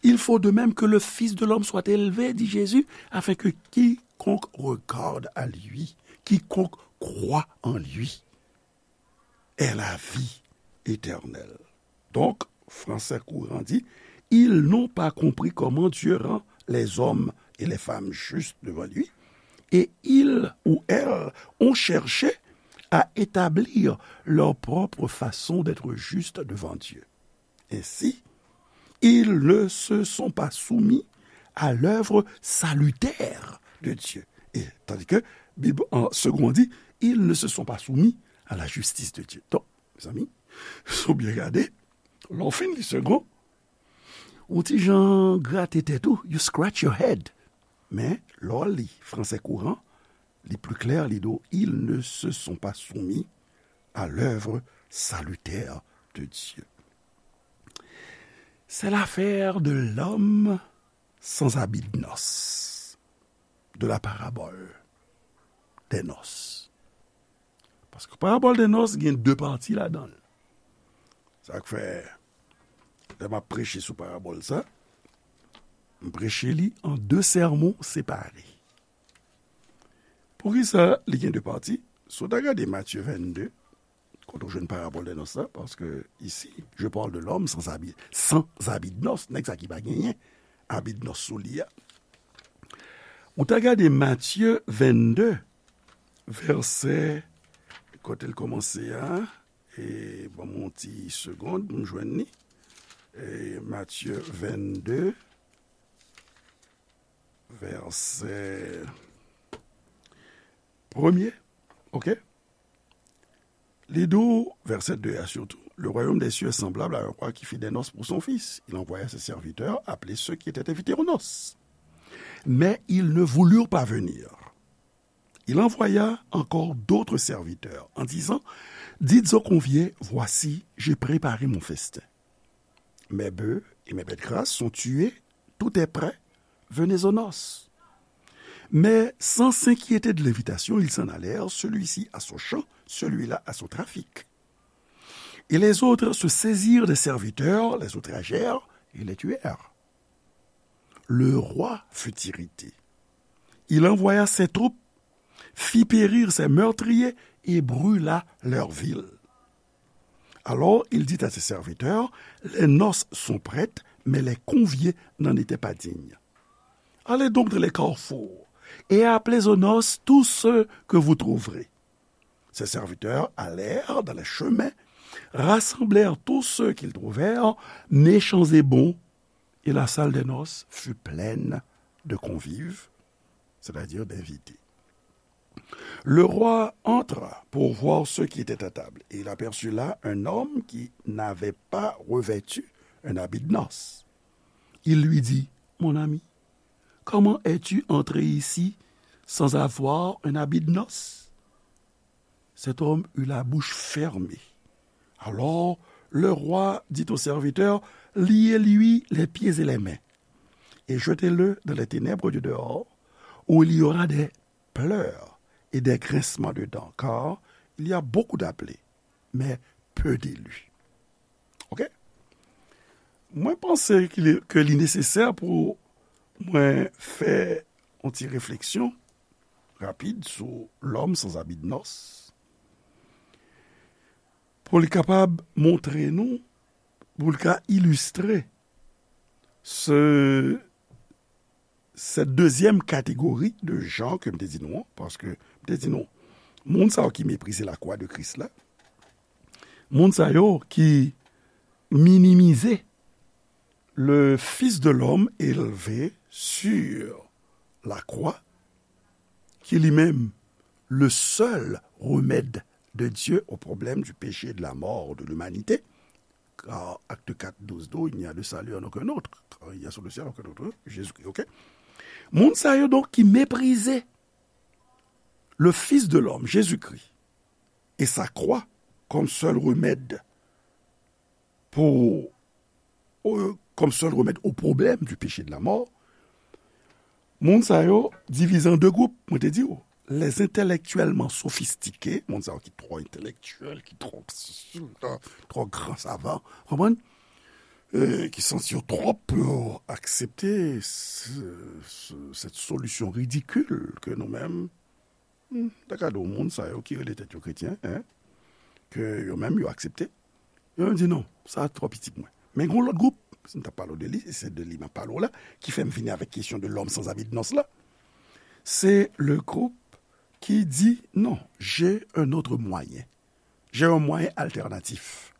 Il faut de même que le Fils de l'homme soit élevé, dit Jésus, afin que quiconque regarde à lui, quiconque croit en lui, ait la vie éternelle. Donk, fransè kouran di, ils n'ont pas compris comment Dieu rend les hommes et les femmes justes devant lui, et ils ou elles ont cherché à établir leur propre façon d'être juste devant Dieu. Ainsi, ils ne se sont pas soumis à l'œuvre salutaire de Dieu. E tandis que Bib an segon di, ils ne se sont pas soumis à la justice de Dieu. Donk, mezanmi, si w byen gade, lè w fin li segon, ou ti jan grate tèt ou, you scratch your head. Men, lè w li fransè kouran, li pli klè, li di w, ils ne se sont pas soumis à l'œuvre salutaire de Dieu. C'est l'affaire de l'homme sans habit de noces, de la parabole des noces. Paske parabòl de nòs gen de pati ladan l. Sa k fè, lè m ap preche sou parabòl sa, m preche li an de sèmon separe. Poukisa li gen de pati? Si w ta gade Matye vennde, kote w jwenn parabòl de nòs la, paske isi, je parle de l'homme sans habit, sans habit de noces, nèg sa ki pa genyen habit de noces sou li a. Ou ta gade Matye vennde, vèsè, kote l kòmanse a, e ban m yon ti segonn pou m jwenn li. E Matye vennde, vèsè premye, oke? Li di w, vèsè de a sitou, le royaume des cieux est semblable à un roi qui fit des noces pour son fils. Il envoya ses serviteurs appeler ceux qui étaient invités aux noces. Mais ils ne voulurent pas venir. Il envoya encore d'autres serviteurs en disant, dites aux conviés, voici, j'ai préparé mon festin. Mes bœufs et mes bêtes grasses sont tués, tout est prêt, venez aux noces. Mais sans s'inquiéter de l'invitation, ils s'en allèrent, celui-ci à son champ, celui-là à son trafic. Et les autres se saisirent des serviteurs, les outragèrent et les tuèrent. Le roi fut irrité. Il envoya ses troupes, fit périr ses meurtriers et brûla leur ville. Alors il dit à ses serviteurs, les noces sont prêtes, mais les conviés n'en étaient pas dignes. Allez donc dans les carrefours et appelez aux noces tous ceux que vous trouverez. Ses serviteurs allèrent dans les chemins, rassemblèrent tous ceux qu'ils trouvèrent, méchants et bons, et la salle des noces fut pleine de convives, c'est-à-dire d'invités. Le roi entra pour voir ceux qui étaient à table, et il aperçut là un homme qui n'avait pas revêtu un habit de noces. Il lui dit, mon ami, Comment es-tu entré ici sans avoir un habit de noces ? Cet homme eut la bouche fermée. Alors le roi dit au serviteur : Liez-lui les pieds et les mains, et jetez-le dans les ténèbres du dehors, où il y aura des pleurs et des grincements de dents, car il y a beaucoup d'appelés, mais peu d'élus. Ok? Mwen panse ke li, ke li nesesè pou mwen fè yon ti refleksyon rapid sou L'homme sans habit de noces, pou li kapab montre nou, pou li ka ilistre se, cette deuxième catégorie de gens ke m te di nou an, paske m te di nou, moun sa yo ki meprize lakwa de Kris la, moun sa yo ki minimize le Fils de l'homme élevé sur la croix, qui lui-même le seul remède de Dieu au problème du péché et de la mort de l'humanité, car acte quatre, douze, douze, il n'y a de salut en aucun autre, car il n'y a sur le ciel aucun autre, Jésus-Christ, ok? Moun sa yo donk ki meprize le Fils de l'homme, Jésus-Christ, et sa croix comme seul remède pour, euh, comme seul remède au problème du péché et de la mort, moun sa yo divize an de gwoup, mwen te di w, les intellectuellement sophistiqués, moun sa yo ki twò entèlektyèl, ki twò, twò gran savan, konprann? Euh, ki santi yo twò pou aksepte se, se, cette solution ridicule que nous-mêmes, hmm, ta ka di w moun sa yo ki rele tèt yo kretyen, en, ke yo menm yo aksepte. Yo menm di non, sa twò piti pou mwen. Men gen yon lòt gwoup, si m t ap pale w de li, e se de li m ap pale w la, ki fè m vini avèk kesyon de l'homme sans habit de noces la. Se le group ki di non, j'ai un autre moyen. J'ai un moyen alternatif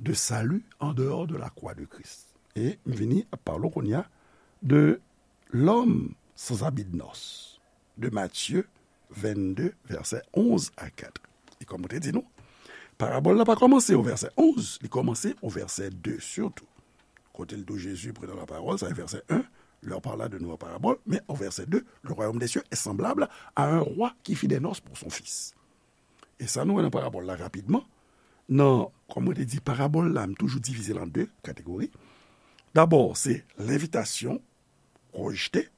de salut en dehors de la croix de Christ. E m vini ap pale w kounye a de l'homme sans habit de noces de Matthieu vennde, vèsè onz a kat. E kòm mwen te di nou, parabòl la pa kòmanse o vèsè onz, li kòmanse o vèsè de sitou. Kote l di w Jésus prenant la parole, sa se vèsè en, leur parla de nouvelles paraboles, men o vèsè de, le royaume des cieux est semblable à un roi qui fit des noces pour son fils. E sa nou wè nan parabòl la rapidman, nan, kòm mwen te di, parabòl la, m toujou divize l an de kategori. Dabò, se lenvitasyon rejte.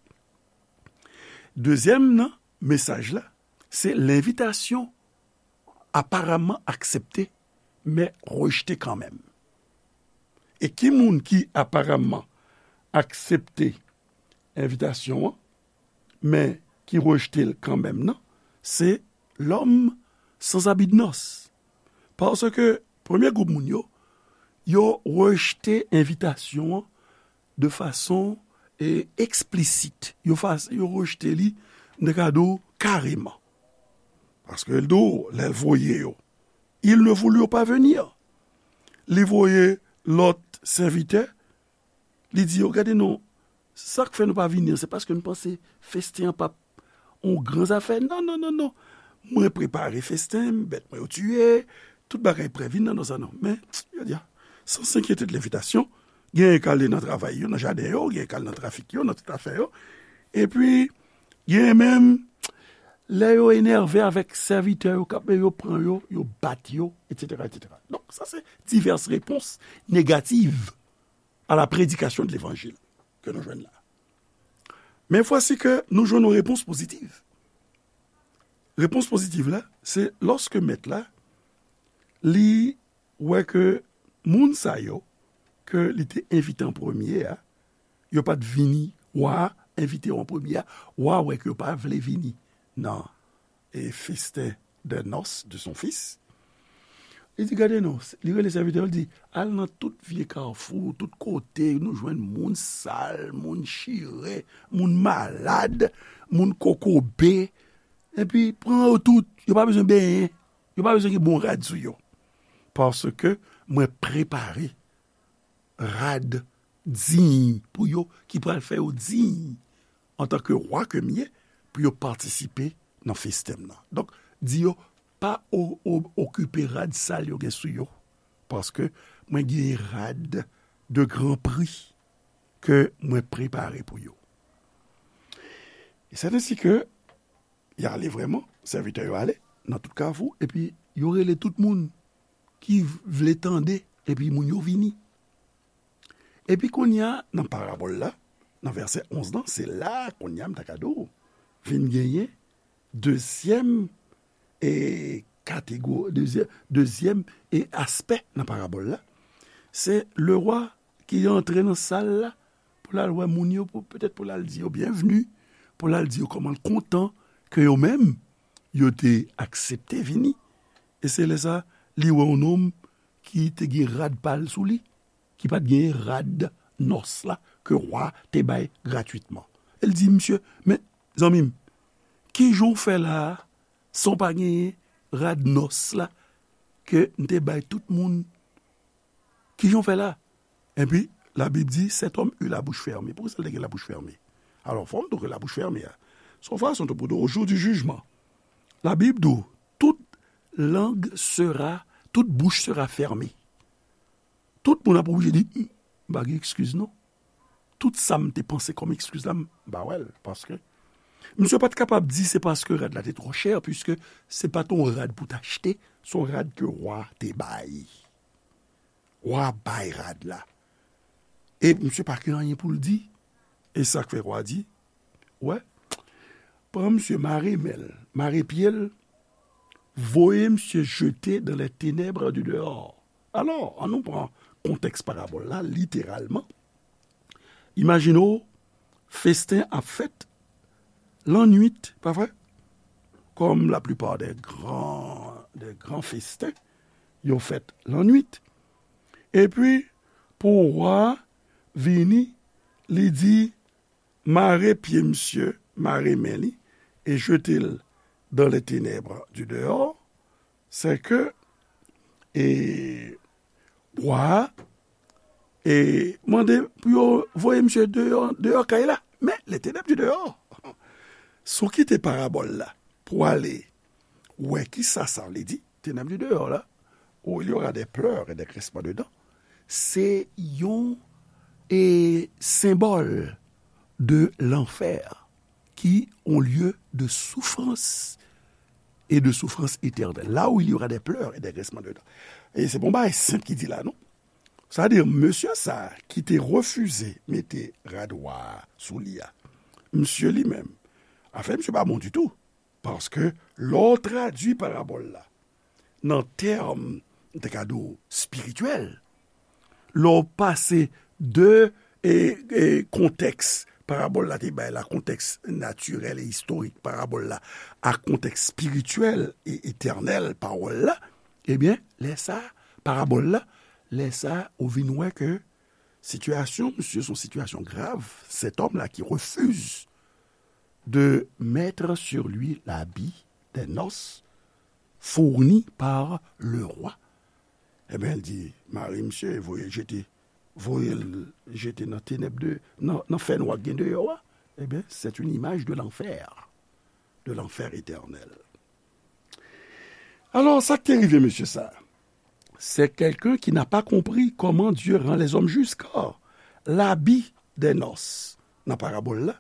Dezyèm nan mesaj la, se lenvitasyon aparamman aksepte, men rejte kanmenm. E ki moun ki aparamman aksepte envitasyon an, men ki rejte l kanmenm nan, se l'homme sans habit de noces. Paske premye gwoup moun yo, yo rejte envitasyon an de fason, e, eksplisit. Yo fas-, yo rejte li, m te ka di w, kareman. Paske l di w, lè l voye yo, ils ne voulurent pas venir. Li voye lòt sèvitè, li di yo, gade non, sa k fè nou pa vini an, se paske nou panse festen an p ap yon gran zafè. Non, non, non, non. Mwen prepare festen, bèt mwen yo tiye, tout bagay prè, vin nan non sa non. Men, yo di a, sans s'inquiéter de l'invitation, genyen k ale nan travay yo, nan jaden yo, genyen k ale nan trafik yo, nan tout afè yo. Epi, genyen menm, lè yo enève avèk sèvitè yo, k ap, yo pran yo, yo bat yo, etsetera, etsetera. Donk, sa se divès repons negativ à la prédication de l'évangile ke nou jwenn la. Men vwasi ke nou jwenn yon repons pozitiv. Repons pozitiv la, se lòske mèt la, li wè ke moun sa yo ke li te envite an premye a, yo pa t vini, wa a envite yo an premye a, wa a wè ke yo pa vle vini nan, e, festen de noces de son fils. Li di, gade non, li rele sèvitè yo, li di, al nan tout vye kafou, tout kote nou jwenn moun sal, moun chire, moun malad, moun kokobe, epi pran yo tout, yo pa bezwen benyen, yo pa bezwen gen bon rad sou yo. Paske mwen prepare rad diy pou yo, ki pral fè yo diy antanke wa ke m ye, pou yo patisipe nan festen m nan. Donk, di yo, pa o-, o-, okipe rad sal yo gen sou yo, paske mwen gen rad de gran pri ke mwen prepare pou yo. C'est ainsi que y ale vrèman, sèvitè yo ale nan tout kafou, epi yo rele tout moun ki vle tande, epi moun yo vini. Epi kounye a, nan parabòl la, nan vèsè onz lan, se la kounye a m ta ka di w, vin genyen dezyèm e kategori, dezyèm, dezyèm e aspè nan parabòl la. Se lewa ki antre nan sal la pou l al wè moun yo, pou, petèt pou l al di yo byenvni, pou l al di yo kòman l kontan ke yo menm, yo te aksepte vini. E se lè sa, li wè yon nonm ki te gen rad pa l sou li, ki pa t gen rad nòs la ke wa te bay gratwitman. E l di, "Misye, men, zanmi m, ki jan w fè la a, san w pa gen rad nòs la ke m te bay tout moun? Ki jan w fè la?" Epi, Labib di, "Cet homme eut la bouche fermée." Poukisa l te gen labouch fèmen? Alò, fò m di w ke labouch fèmen a, se yon fason tou pou di w, au jour du jugement, Labib di w, toute langue sera, toute bouche sera fermée. Tout moun ap oblije di, "M pa gen ekskiz non. Tout sa m te panse kòm ekskiz la, m pa wè l." Paske misye pa t kapab di se paske rad la te twò chè, piske se pa t yon rad pou w t achte, se yon rad ke wa te bay. Wa bay rad la. E misye pa gen anyen pou l di. E sa k fè wa di, "Wè, pran misye, mare men l, mare pye l, voye misye jete dans les ténèbres du dehors." Alò, ann nou pran kontèks parabòl la, literalman. Imajine w, festen ap fèt lannwit, pa vre? Comme la plupart des grands, des grands festen, yo fèt lannwit. Epi, pou wa vini, li di, "Mare pye misye, mare men li, e jete l dans les ténèbres du dehors." Se ke, e, wa a, e, mande pou yo voye misye deyò, deyò kay la. Men, les ténèbres du dehors. Si w kite parabòl la pou w ale wè kisa sa vle di, ténèbres du dehors la, où il y aura des pleurs et des grincements de dents, se yon, e, senbòl de lanfè, ki yon lye de soufrans e de soufrans etènèl. Là où il y aura des pleurs et des grincements de dents. E se pa yon bagay senp ki di la, non. Sa vle di, mesye sa a ki te refize mete rad wa a sou li a, misye li menm, afè misye pa bon ditou. Paske lè w tradui parabòl la nan tèm, m te ka di w, espirityèl, lè w pase de, e, e, kontèks parabòl la te bay la, kontèks natirèl e istorik parabòl la, ak kontèks espirityèl e etènèl pawòl la, ebyen, lè sa, parabòl la, lè sa, ou vin wè ke sitiyasyon misye se yon sitiyasyon grav, cet homme-là qui refuse de mettre sur lui l'habit des noces fourni par le roi. Ebyen, l di, "Mare misye, voye l jete, voye l jete nan tenèb de, nan, nan fènwa k gen deyò a." Ebyen, c'est une image de l'enfer, de l'enfer éternel. Alò, sa k te rive mesye sa a? C'est quelqu'un qui n'a pas compris comment Dieu rend les hommes justes, car l'habit des noces, nan parabòl la,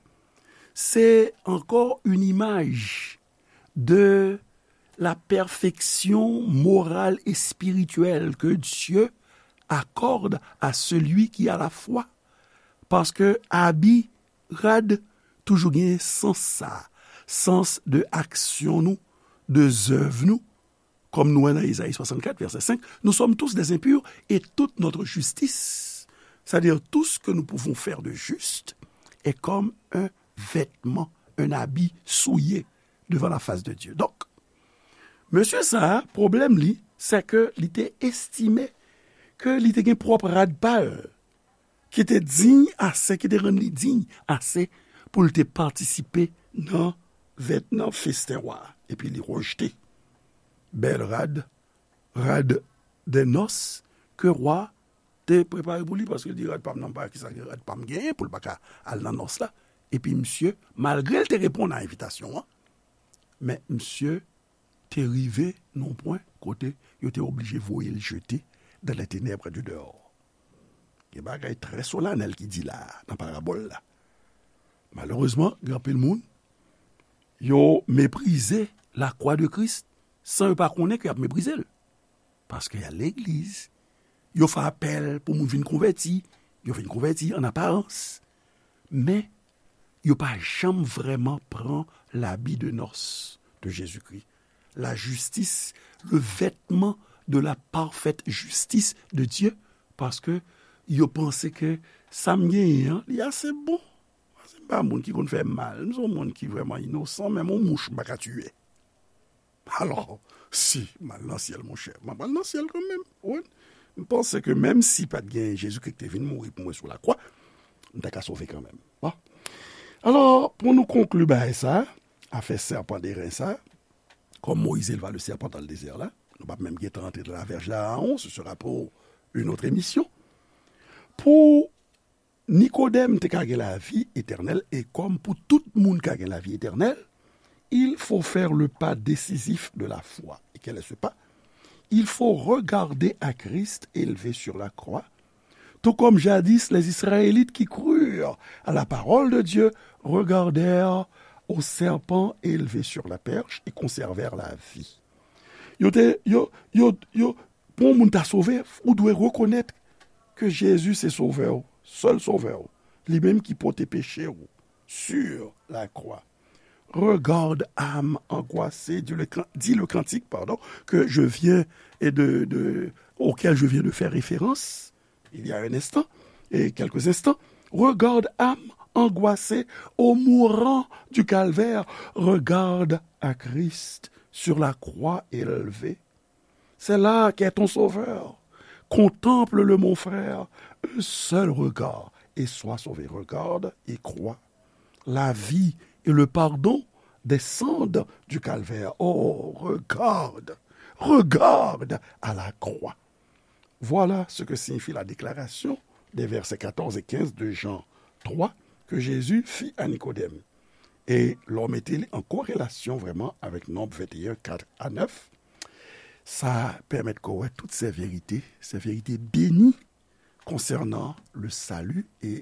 se ankò une image de la perfection morale et spirituelle que Dieu accorde à celui qui a la foi. Paske abi, rad, toujou gen sans sa, sans de aksyon nou, de zèv nou, kòm nou wè nan Ezayi swasannkat, vèsè senk, nous sommes tous des impurs et toute notre justice, c'est-à-dire tout ce que nous pouvons faire de juste, est comme un vêtement, un habit souillé devant la face de Dieu. Donk, mesye sa a, pwoblèm li, se ke li te estime ke li te gen pwòp rad pa l, ki te diy ase, ki te rann li diy ase pou l te patisipe nan vèt, nan festen wa a. Epi li rejte bèl rad, rad de nòs ke wa te prepare pou li, paske l di, "Rad pa m nan, pa kisa gen rad pa m genyen pou l pa ka al nan nòs la." Epi misye, malgre l te reponn a envitasyon an, men misye te rive nan yon pwen kote yo te oblije voye l jete dans les ténèbres du dehors. Gen bagay trè solanèl ki di la a, nan parabòl la. Malerezman, gen anpil moun, Yo meprize lakwa de Kris san yo pa konnen ke y ap meprize l. Paske y al legliz, yo fè apèl pou moun vin konvèti, yo vin konvèti an aparans. Men, yo pa janm vrèman pran labi de nòs de Jezikri. La justice, le vêtement de la parfaite justice de Dieu, paske yo panse ke sa m genyen an, li ase bon. Paske m pa moun ki konn fè mal, m se yon moun ki vrèman inosan, menm yon mouch m pa ka tiye. Alò, si m al nan syèl, monchè, m ap al nan syèl kanmenm. Wi. M panse ke menm si pa t gen Jezikri ki te vin mouri pou mwen sou lakwa, m ta ka sove kanmenm. Bon. Alò, pou nou konkli bagay sa, afè sèpan de ren sa, comme Moïse éleva le serpent dans le désert la, nou p ap menm gentan antre dans la verge d'Aaron, ce sera pour une autre émission. Pou Nikodèm te ka gen lavi etènèl, e kòm pou tout moun ka gen lavi etènèl, il faut faire le pas décisif de la foi. Et quel est ce pas? Il faut regarder à Christ élevé sur la croix, tout comme jadis les Israélites qui crurent à la parole de Dieu regardèrent au serpent élevé sur la perche et conservèrent la vie. Yo te, yo, yo, yo, pou yon moun ta sove, ou dwe rekonèt ke Jezi se sovè w, sèl sovè w, li menm ki pote peche w sur la croix. Regarde, âme angoissée, dit le can-, dit le cantique, pardon, que je viens et de, de, auquel je viens de faire référence il y a un instant, et quelques instants. Regarde, âme angoissée, au mourant du calvaire, regarde à Christ sur la croix élevée. C'est là qu'est ton sauveur. Contemple-le, mon frère, un seul regard, et sois sauvé. Regarde et crois. La vie et le pardon descendent du calvaire. Oh, regarde, regarde à la croix. Voilà ce que signifie la déclaration des versets quatorze et quinze de Jean trois que Jésus fit à Nicodème. E lè w mete li an korelasyon vrèman avèk Nonb venteyen, kat a nèf, sa pèmèt ke w wè tout sè verite, sè verite beni konsènan le salut e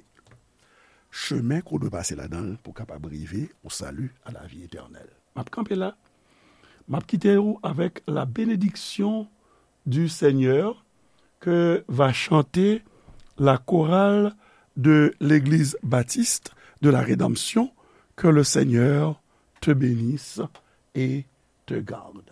chemen ke w dwe pase ladan l pou w kapab rive o sali, a la vi etènèl. M ap kanpe la. M ap kite w avèk la bénédiction du Seigneur que va chanter la chorale de l'Église baptiste de la Rédemption. Que le Seigneur te bénisse et te garde.